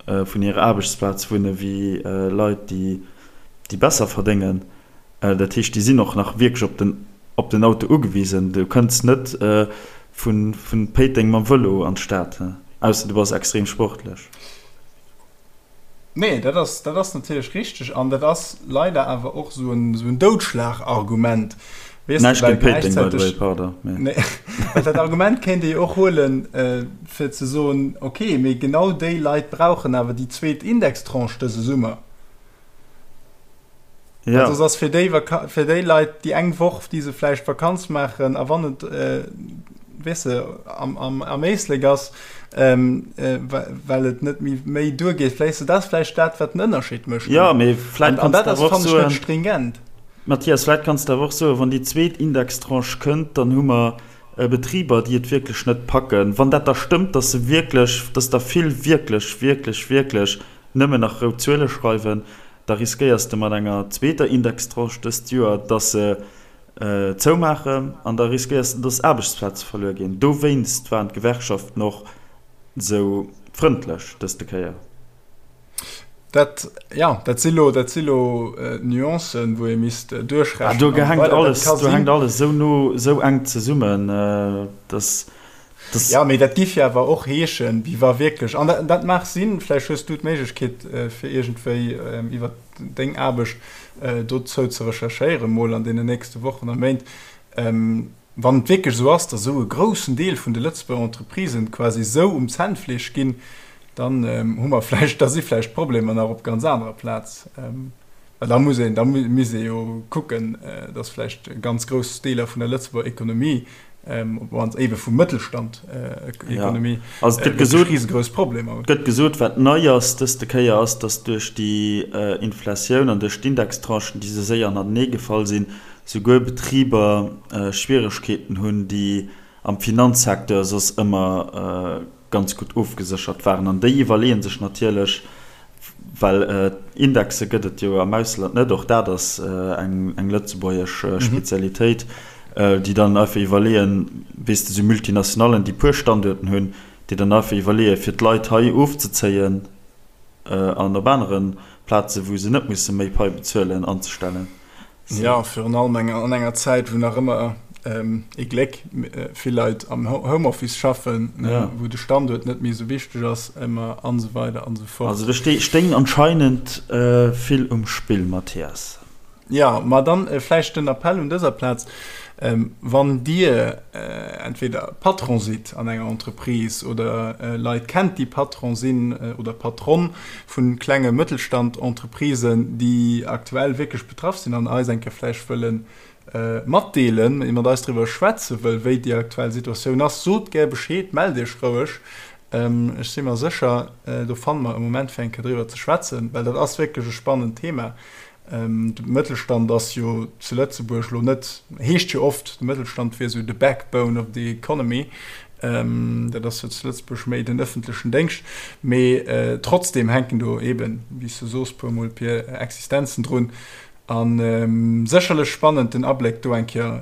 vun hirer Aarbechtsplaz wunne wéi Leit, déi besser verdéngen. Dat heescht, déi sinn och nach wierklech op den, op den Auto ugewisen. Du kënns net vu Péiteng mam Vëlo an d'Stad, ausser du bass extrem sportlech. Nee, dat ass, dat ass natierlech richteg. An dat ass leider awer och esou en, esou en Doudschlagargument, weess de, Näischt well géint Péiteng, by the way, gläichzäiteg, pardon, mee. nee, well dat Argument kéint ee jo och huelen, fir ze soen, okay, mee genau déi Leit brauchen awer déi zweet Indextranche dëse Summer. Ja. Also ass fir déi, fir déi Leit déi eng Woch, déi se vläicht Vakanz maachen a wann et äh, weess de, am, am, am Éislek ass, ähm, äh, well et net méi, méi duergeet, vläicht se dat vläicht dat, wat den Ënnerscheed mécht. Ja, mee vläicht An, an kanns dat de ass, awer och fannen ech, net soen, stringent. Mathias, vläicht kanns de awer och soen, wann déi zweet Indextranche kënnt, dann hu mer Betriber, déi et wierklech net packen. Wann dat da stëmmt, dass se wierklech, dass der vill wierklech, wierklech, wierklech nëmmen nach rout Zuele schreiwen, da riskéiers de mat enger zweeter Indextranche dëst Joer, dass se zoumaachen an da riskéiers de, dass Aarbechtsplaze verluer ginn. Dowéinst waren d'Gewerkschaften och esou frëndlech dëste Kéier. Dat, jo, dat si lo, dat si lo Nuancen, wou ee misst duerchrechnen. Do hänkt alles, do hänkt alles esou no, esou enk zesummen, dass. Das ja, mee dat giff jo awer och heeschen, wéi wa wierklech, an dat, dat mag sinn, vläicht hues du d'Méiglechkeet, fir iergendwéi iwwer deng Aarbecht dozou ze recherchéieren, mol an deenen nächste Wochen a Méint, wann et wierklech esou ass, datt esou e groussen Deel vun de Lëtzebuerger Entreprisen quasi esou um Zännfleesch ginn, dann hu mer vläicht, da si vläicht d'Problemer nach op ganz anerer Plaz. Well da muss een, da misst ee jo kucken, datt vläicht ganz grouss Deeler vun der Lëtzebuerger Ekonomie, op d'mannst éiwe vum Mëttelstand, Ekonomie, Also et gëtt gesot, risegrouss Problemer hunn. Et gëtt gesot, wat nei ass dëste Kéier ass, datt duerch déi Inflatioun an duerch d'Indextranchen, déi esou séier hannertenee gefall sinn, souguer Betriber Schwieregkeeten hunn, déi am Finanzsecteur soss ëmmer ganz gutt ofgeséchert waren. An déi iwwerleeë sech natierlech, Well Indexe gëtt et jo am Ausland net, och dat ass eng lëtzebuergesch Spezialitéit, déi dann einfach iwwerleeën, weess de, sou Multinationallen, déi puer Standuerten hunn, déi dann einfach iwwerleeën, fir d'Leit hei ofzezéien an op anere Plazen, wou se net musse méi Pai bezuelen, anzestellen. Jo, virun allem an enger Zäit, wou nach ëmmer, ee Gléck, vill Leit am Homeoffice schaffen, wou de Standuert net méi esou wichteg ass ëmmer an esou weider an esou fort. Also do stéing anscheinend vill um Spill, Mathias. Jo, ma dann vläicht den Appell un dëser Plaz, Wann Dir entweder Patron sidd an enger Entreprise oder Leit kennt, déi Patron sinn oder Patronne vu klenge Mëttelstand-Entreprisen, déi aktuell wierklech betraff sinn an eis eng Kéier vläicht wëlle matdeelen, mat eis driwwer schwätze wëll, wéi déi aktuell Situatioun ass, sot gär Bescheed, mellt Iech roueg. Ech si mer sécher, do fanne mer e Moment fir eng Kéier driwwer ze schwätzen, well dat ass wierklech e spannend Thema. De Mëttelstand ass jo zu Lëtzebuerg elo net, heescht jo oft, de Mëttelstand wier esou the backbone of the economy. Dat ass jo zu Lëtzebuerg méi den ëffentlechen Déngscht. Mee trotzdem hänken do eeben, wéi s du soos, puer mol Pier Existenzen drun. A sécherlech spannend, den Abléck do eng Kéier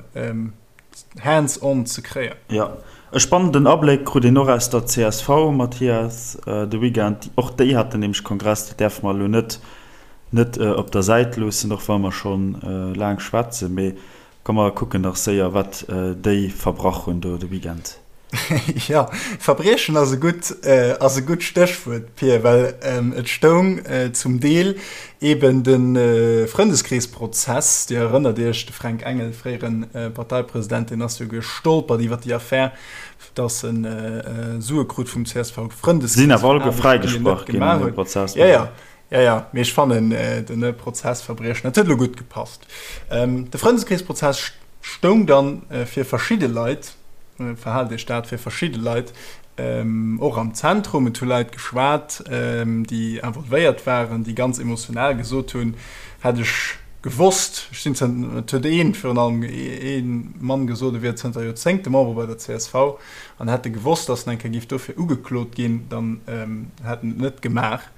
hands on ze kréien. Jo, e spannenden Abléck krut een och aus der csv, Mathias, de Weekend. Och déi haten nämlech Kongress, dat däerfe mer elo net net op der Säit loossen, och wa mer scho laang schwätzen. Mee komm mer kucken nach séier, wat déi verbrach hunn do de Weekend. Jo, Verbriechen ass e gutt, ass e gutt Stéchwuert, Pir, well et stoung zum Deel eeben de Frëndeskreesprozess, Dir erënnert Iech, de Fränk Engel, fréiere Parteipresident, deen ass jo gestolpert iwwer déi Affär, datt en Sue krut vum CSV-Frëndeskrees. Sinn awer alleguer fräigesprach ginn an deem Prozess. Jo, jo, jo, jo, mee ech fannen den Prozessverbriechen, dat huet elo gutt gepasst. De Frëndeskreesprozess stoung dann fir verschidde Leit, verhaalt Iech dat, fir verschidde Leit och am Zentrum. Et hu Leit geschwat, déi involvéiert waren, déi ganz emotional gesot hunn, hätt ech gewosst, ech sinn zënter, et huet een, virun allem ee Mann gesot, e wier zënter Joerzéngte Member bei der csv an hätt e gewosst, datt en eng Kéier géif dofir ugeklot ginn, dann hätt en et net gemaach.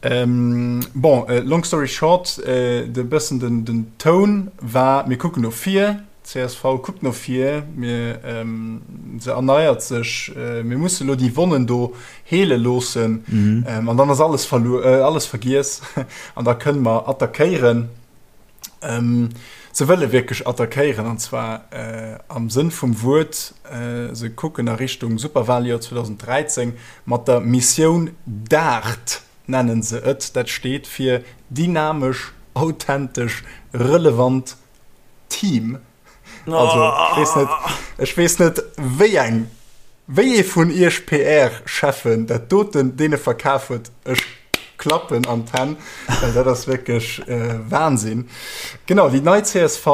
Bon, long story short, de bëssen den Toun war, mir kucken no vir, csv kuckt no vir, mir, se erneiert sech, mir musse lo déi Wonnen do heele loossen an dann ass alles verluer, alles vergiess an da kënne mer attackéieren. Se wëlle wierklech attackéieren an zwar am Sënn vum Wuert, se kucken a Richtung Superwaljoer 2013 mat der Missioun DART nennen se et. Dat steet fir dynamesch, authentesch, relevant Team. Also ech weess net, ech weess net wéi eng, wéi ee vun iech PR-Cheffen dat doten deene verkaf huet. Ech klappen an d'Hänn, well dat ass wierklech Wahnsinn. Genau, déi nei csv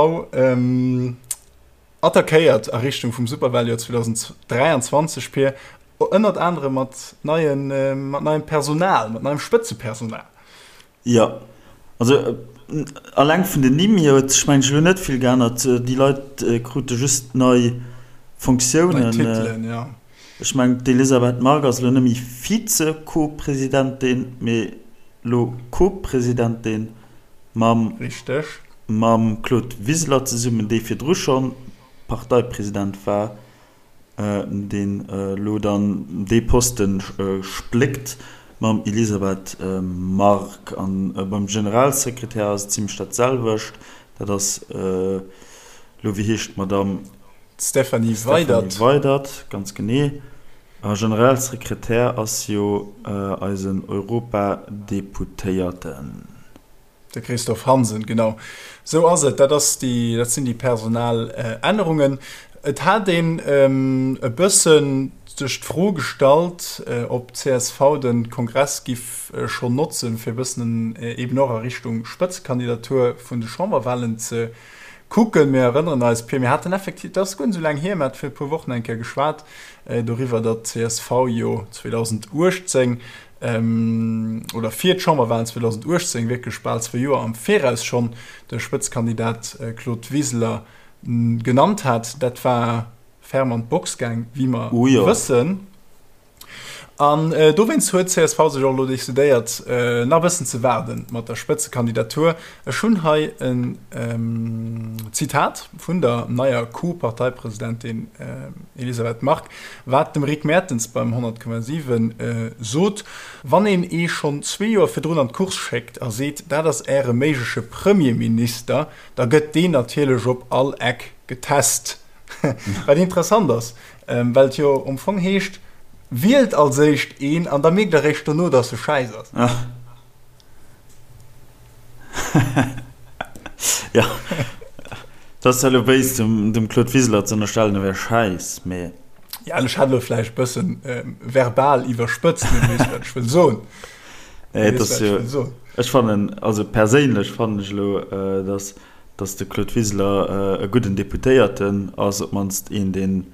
attackéiert a Richtung vum Superwaljoer 2023, Pir, ënnert anerem mat neien, mat neiem Personal, mat neiem Spëtzepersonal. Jo, also alleng vun den Nimm hier huet sech mengen ech elo net vill geännert. Déi Leit krute just nei Fonctiounen. Nei Titelen, jo. Ech mengen d'Elisabeth Margue ass elo net méi Vize-Co-Presidentin, mee elo Co-Presidentin mam Richteg. mam Claude Wiseler zesummen, dee virdru schonn Parteipresident war. deen elo dann dee Poste spléckt mam Elisabeth Margue. An beim Generalsekretär ass et zimlech dat selwecht. Dat ass elo, wéi heescht d'Madame? D'Stéphanie Weydert. Stéphanie Weydert, ganz genee. A Generalsekretär ass jo eisen Europadeputéierten. De Christophe Hansen, Genau esou ass et. Dat ass déi, dat sinn déi personal Ännerungen. Et hat een e bëssen sech d'Fro gestallt, ob d'CSV de Kongress giff schonn notzen, fir e bëssen eeben och a Richtung Spëtzekandidatur vun de Chamberwahlen ze kucken. Mir erënneren eis, Pir, mir haten effektiv, dat ass guer net esou laang hier, mir hate vir e puer Wochen eng Kéier geschwat doriwwer, datt d'CSV jo 2018 oder fir d'Chamberwahlen 2018, wierklech bal zwou Joer am Viraus schonn, de Spëtzkandidat Claude Wiseler genannt hat. Dat war ferm an d'Box gaang, wéi mer wëssen. An dowéinst huet csv sech och elo decidéiert, nach e bëssen ze waarde mat der Spëtzekandidatur. Ech hunn hei en Zitat vun der neier Co-Parteipresidentin Elisabeth Margue, Wat dem Rick Mertens beim 100,7 sot, Wann een ee schonn zwee Joer virdrun an d'Course schéckt a seet, dat ass Äre méigleche Premierminister, da gëtt deen natierlech op all Eck getest. Wat interessant ass, well et jo am Fong heescht, Wielt als éischt een an da mierkt Der eréischt dono, datt e schäiss ass. Jo, et ass zwar elo béis, dem Claude Wiseler ze ënnerstellen, e wär schäiss, mee. Ja, ech hat elo vläicht e bëssen verbal iwwerspëtzt, mee du weess, wat ech wëll soen. Nee, et ass jo, ech fannen, also perséinlech fannen ech elo, datt, datt de Claude Wiseler e gudden Deputéierten ass, op d'mannst een, deen,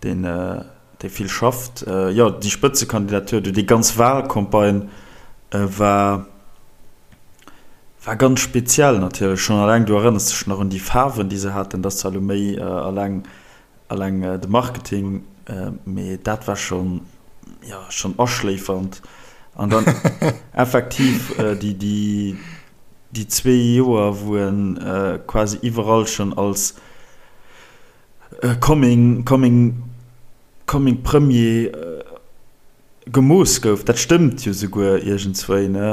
deen, dee vill schafft. Jo, déi Spëtzekandidatur, déi ganz Wahlcampagne war. War ganz speziell natierlech, schonn alleng, du erënners dech nach un déi Faarwen, déi se haten, dat ass zwar elo méi alleng, alleng de Marketing, mee dat war schonn, jo, schonn aschléifernd. An dann effektiv déi, déi, déi zwee Joer, wou en quasi iwwerall schonn als coming, coming, coming Premier gemooss gouf, dat stëmmt jo souguer iergendswéi, ne,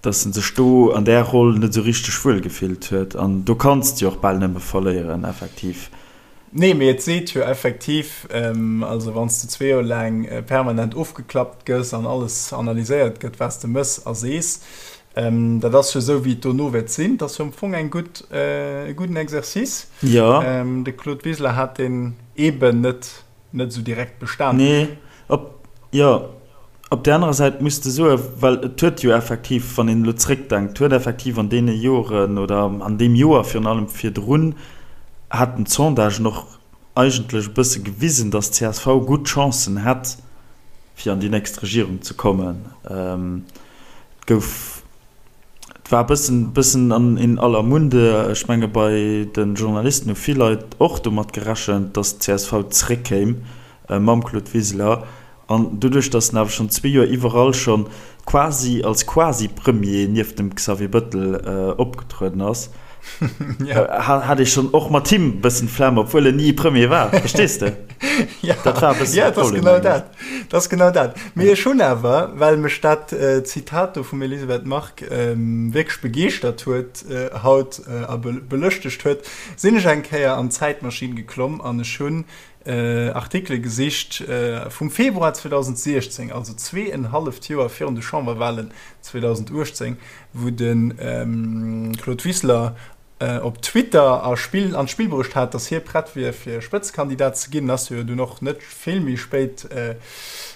dass en sech do an där Roll net esou richteg wuel gefillt huet. An do kanns de jo och bal nëmme verléieren, effektiv. Nee, mee et seet jo effektiv, also wann s de zwee Joer laang permanent ofgeklappt gëss an alles analyséiert gëtt, wat s de mëss a sees, dat ass jo esou, wéi et dono wäert sinn. Dat ass jo am Fong eng gutt, e gudden Exercice. Jo. De Claude Wiseler hat deen eeben net net esou direkt bestan. Nee, op, jo, op där anerer Säit muss de soen, well et huet jo effektiv, wann een elo zréckdenkt, huet effektiv an deene Joren oder an deem Joer virun allem virdrun, haten d'Sondagen och eigentlech e bësse gewisen, datt d'CSV gutt Chancen hätt, fir an déi nächst Regierung ze kommen. Et gouf. Et war e bëssen, bëssen an in aller Munde. Ech menge bei de Journalisten hu vill Leit och domat gerechent, datt d'CSV zréckkéim mam Claude Wiseler. An doduerch, datt en awer schonn zwee Joer iwwerall schonn quasi als Quasi-Premier nieft dem Xavier Bëttel opgetrueden ass, hat ee schonn och mat him e bëssen d'Flemm, obwuel en ni Premier war. Verstees de? Dat war e bëssen de Problem, mengen ech. Dat ass genau dat. Mee ech hunn awer, well mech dat Zitat do vum Elisabeth Margue wierklech begeeschtert huet haut a belëschtegt huet, sinn ech eng Kéier an d'Zäitmaschinn geklomm an ech hunn Artikele gesicht vum Februar 2016, also zweeënhalleft Joer virun de Chamberwahlen 2018, wou de Claude Wiseler op Twitter a Spill an d'Spill bruecht hat, datt hie prett wier fir Spëtzekandidat ze ginn, ass jo dunn och net vill méi spéit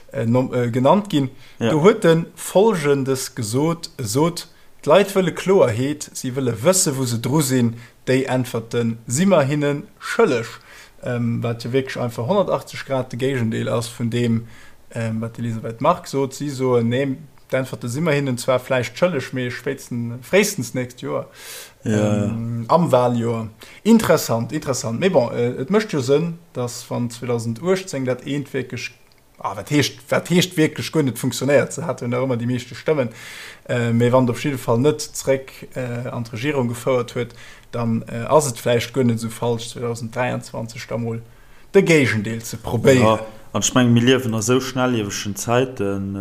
genannt ginn. Do huet e Folgendes gesot, E sot, D'Leit wëlle Kloerheet, si wëlle wësse wou se dru sinn, déi Äntwerte si mer hinne schëlleg. Wat jo wierklech einfach 180 Grad de Géigendeel ass vun deem, wat d'Elisabeth Margue sot. Si soen, nee, D'Äntwerte si mer hinnen zwar vläicht schëlleg, mee spéitstens, fréistens nächst Joer, am Wahljoer. Interessant, interessant. Mee bon, et mécht jo Sënn, datt wann 2018 dat eent wierklech, ah, wat heescht, wat heescht wierklech guer net funktionéiert, se hate jo nach ëmmer déi meeschte Stëmmen, mee wann et op jidde Fall net zréck an d'Regierung gefouert huet, dann ass et vläicht guer net esou falsch, 2023 da mol de Géigendeel ze probéieren. Jo, an ech mengen, mir liewen a sou schnelliewegen Zäiten,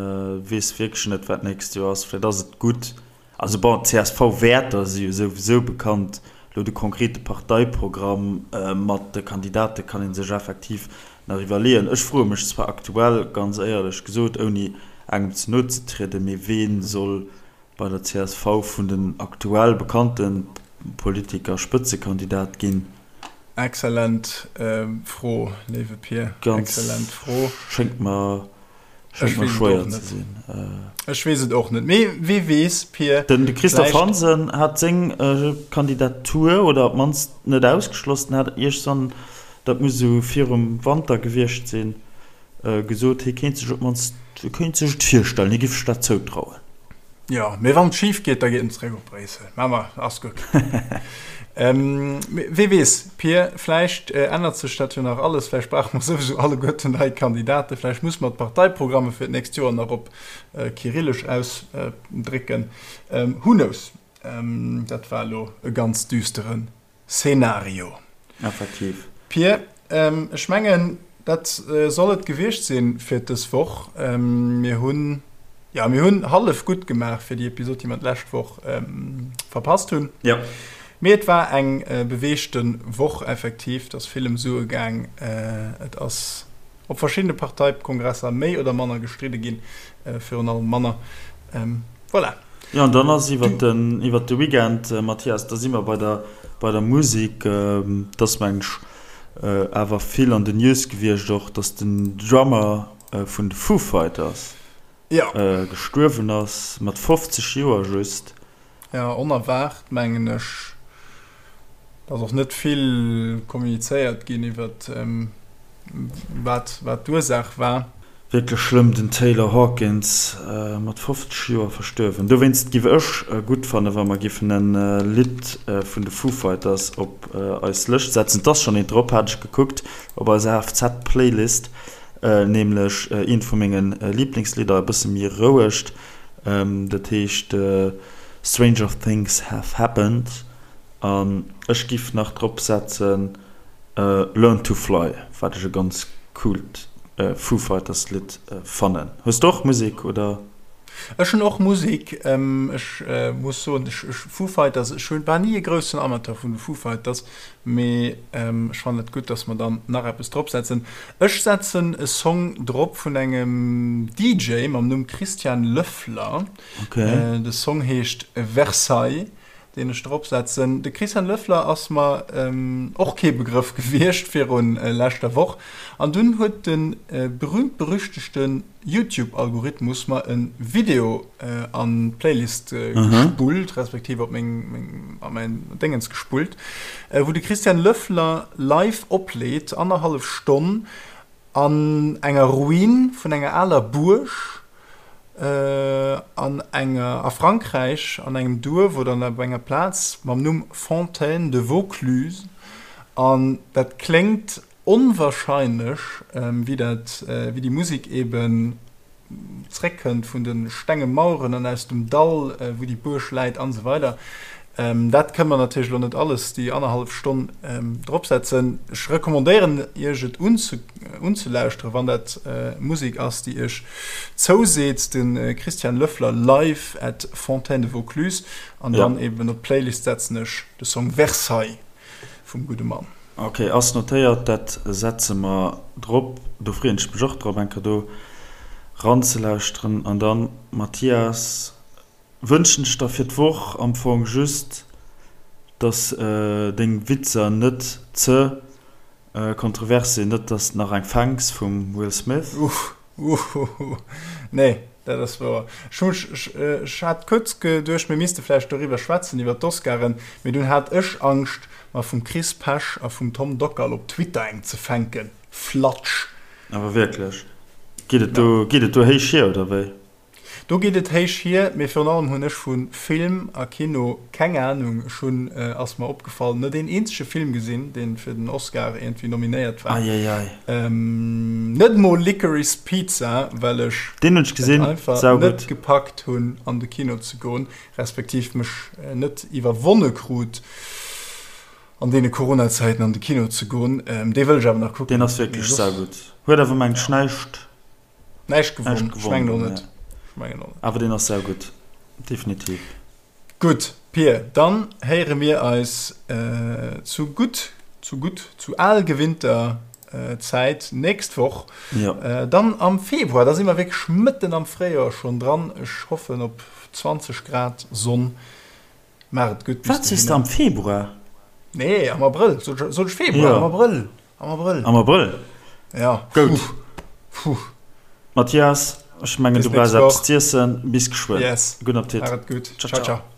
weess wierklech net, wat d'nächst Joer ass. Vläicht ass et gutt, also bon, d'CSV-Wäerter si jo souwisou bekannt, elo de konkrete Parteiprogramm mat de Kandidate kann ee sech effektiv nach iwwerleeën. Ech froe mech zwar aktuell, ganz éierlech gesot, ouni engem ze no ze trieden, mee wee soll bei der csv vun den aktuell bekannte Politiker Spëtzekandidat ginn? Excellent Fro, léiwe Pir. Excellent Fro. Schéngt mer, schéngt mer schwéier ze sinn. Ech weess et och net. Mee wee weess, Pir. Den Christophe Hansen hat seng Kandidatur, oder op d'mannst net ausgeschloss, den hat iergsann, dat muss esou virum Wanter gewiescht sinn, gesot, hie kéint sech op d'mannst, hie kéint sech et virstellen, hie géif sech dat zoutrauen. Jo, mee wann et schif geet, da geet en zeréck op Bréissel. Mä ma, ass gutt. Wee weess, Pir, vläicht ännert sech dat jo nach alles. Vläicht brauche mer souwisou alleguerten nei Kandidaten. Vläicht musse mer d'Parteiprogramme fir d'nächst Joer nach op Kyrillesch ausdrécken. Who knows? Dat war elo e ganz düsteren Szenario. Effektiv. Pir, ech mengen, dat soll et gewiescht sinn fir dës Woch. Mir hunn, jo, mir hunn hallef gutt gemaach fir déi Episod, déi mer d'lescht Woch verpasst hunn. Jo. Mee et war eng beweegte Woch effektiv. Et ass vill ëm Sue gaang. Et ass op verschiddene Parteikongresser méi oder manner gestridde ginn, virun allem manner. Voilà. Jo, an dann ass iwwert den, iwwert de Weekend, Mathias, da si mer bei der, bei der Musek, et ass meng ech awer vill an den News gewiescht och, datt den Drummer vun de Foo Fighters gestuerwen ass, mat 50 Joer just. Jo, onerwaart mengen ech. Et ass och net vill kommunizéiert ginn iwwert wat, wat d'Ursaach war. Wierklech schlëmm, den Taylor Hawkins mat 50 Joer verstuerwen. Dowéinst giff ech gutt fannen, wa mer giffen en Lidd vun de Foo Fighters op eis Lëscht setzen. Et ass schonn eent drop, hat ech gekuckt, op eiser HFZ-Playlist, nämlech eent vu menge Liblingslidder, e bësse méi rouegt, dat heescht Stranger Things Have Happened. An ech giff nach drop setzen Learn to Fly, wat ech e ganz coolt Foo Fighters Lidd fannen. Hues de och Musek oder? Ech hunn och Musek. Ech muss soen, ech Foo Fighters, ech hunn, war ni e groussen Amateur vun de Foo Fighters, mee ech fannen et gutt, dass mer dann nach eppes drop setzen. Ech setzen e Song drop vun engem DJ mam Numm Christian Löffler. De Song heescht Versailles. deen ech drop setzen. De Christian Löffler ass mer och kee Begrëff gewiescht virun leschter Woch, an dunn huet de berühmt-berüchtegte Youtube-Algorithmus mer e Video an d'Playlist gespullt, respektiv op meng, a mäin Déngens gespullt, wou de Christian Löffler live opleet, annerhallef Stonn, an enger Ruin vun enger aler Buerg an enger a Frankräich an engem Duerf oder op enger Plaz mam Numm Fontaine de Vaucluse an dat kléngt onwahrscheinlech wéi dat wéi déi Musek eben zréckkënnt vun de stenge Maueren an aus dem Dall wou déi Buerg läit an esou weider. Dat kënne mer natierlech elo net alles déi annerhallef Stonn dropsetzen. Ech recommandéieren Iech et unzelauschteren, wann dat Musek ass, déi Iech zouseet. De Christian Löffler live at Fontaine de Vaucluse. An dann eben op d'Playlist setzen ech de Song Versailles vum gudde Mann. Ok, ass notéiert, dat setze mer drop. Do freeën ech mech och drop, eng Kéier do ranzelauschteren. An dann, Mathias, Wënschen ech der fir d'Woch am Fong just, dass deng Witzer net ze kontrovers sinn, net dass de nach eng fänks vum Will Smith. Uhuhu, nee, dat ass wouer. Ech hu mech, ech hat kuerz geduecht, mir misste vläicht doriwwer schwätzen, iwwer d'Oscaren, mee dunn hat ech Angscht, mer vum Chris Pesch a vum Tom Dockal op Twitter eng ze fänken. Flatsch! Awer wierklech, geet et do, geet et do héich hier, oder wéi? Do geet et héich hier, mee virun allem hunn ech vu Film a Kino keng Anung. Ech hunn, ass mer opgefall, net een eenzege Film gesinn, dee fir den Oscar iergendwéi nominéiert war. Eieiei. Net mol Licorice Pizza, well ech Deen hunn ech et gesinn, einfach net saugutt. gepackt hunn an de Kino ze goen, respektiv mech net iwwerwonne krut, an deene Corona-Zäiten an de Kino ze goen. Dee wëll ech awer nach kucken. Deen ass Mee wierklech soss, saugutt. Huet awer mengt ech ja. näischt Näischt gewonn. Ech mengen och net. Awer deen ass saugutt, definitiv. Gutt, Pir, dann héiere mir eis zu gutt, zu gutt, zu al gewinnter Zäit nächst Woch. Jo. Dann am Februar, da si mer wierklech mëtten am Fréijoer schonn dran. Ech hoffen op 20 Grad Sonn. Maach et gutt bis Wat sees de, am Februar? Nee, am Abrëll. Sot ech Februar? Am Abrëll. Am Abrëll. Am Abrëll? Ja. Goud. Puh. Mathias, ech mengen Bis du brauchs nächst eppes Woch. z'iessen. Bis geschwënn. Yes. Gudden Appetit. Maach et gutt. Ciao, Ciao, ciao. ciao.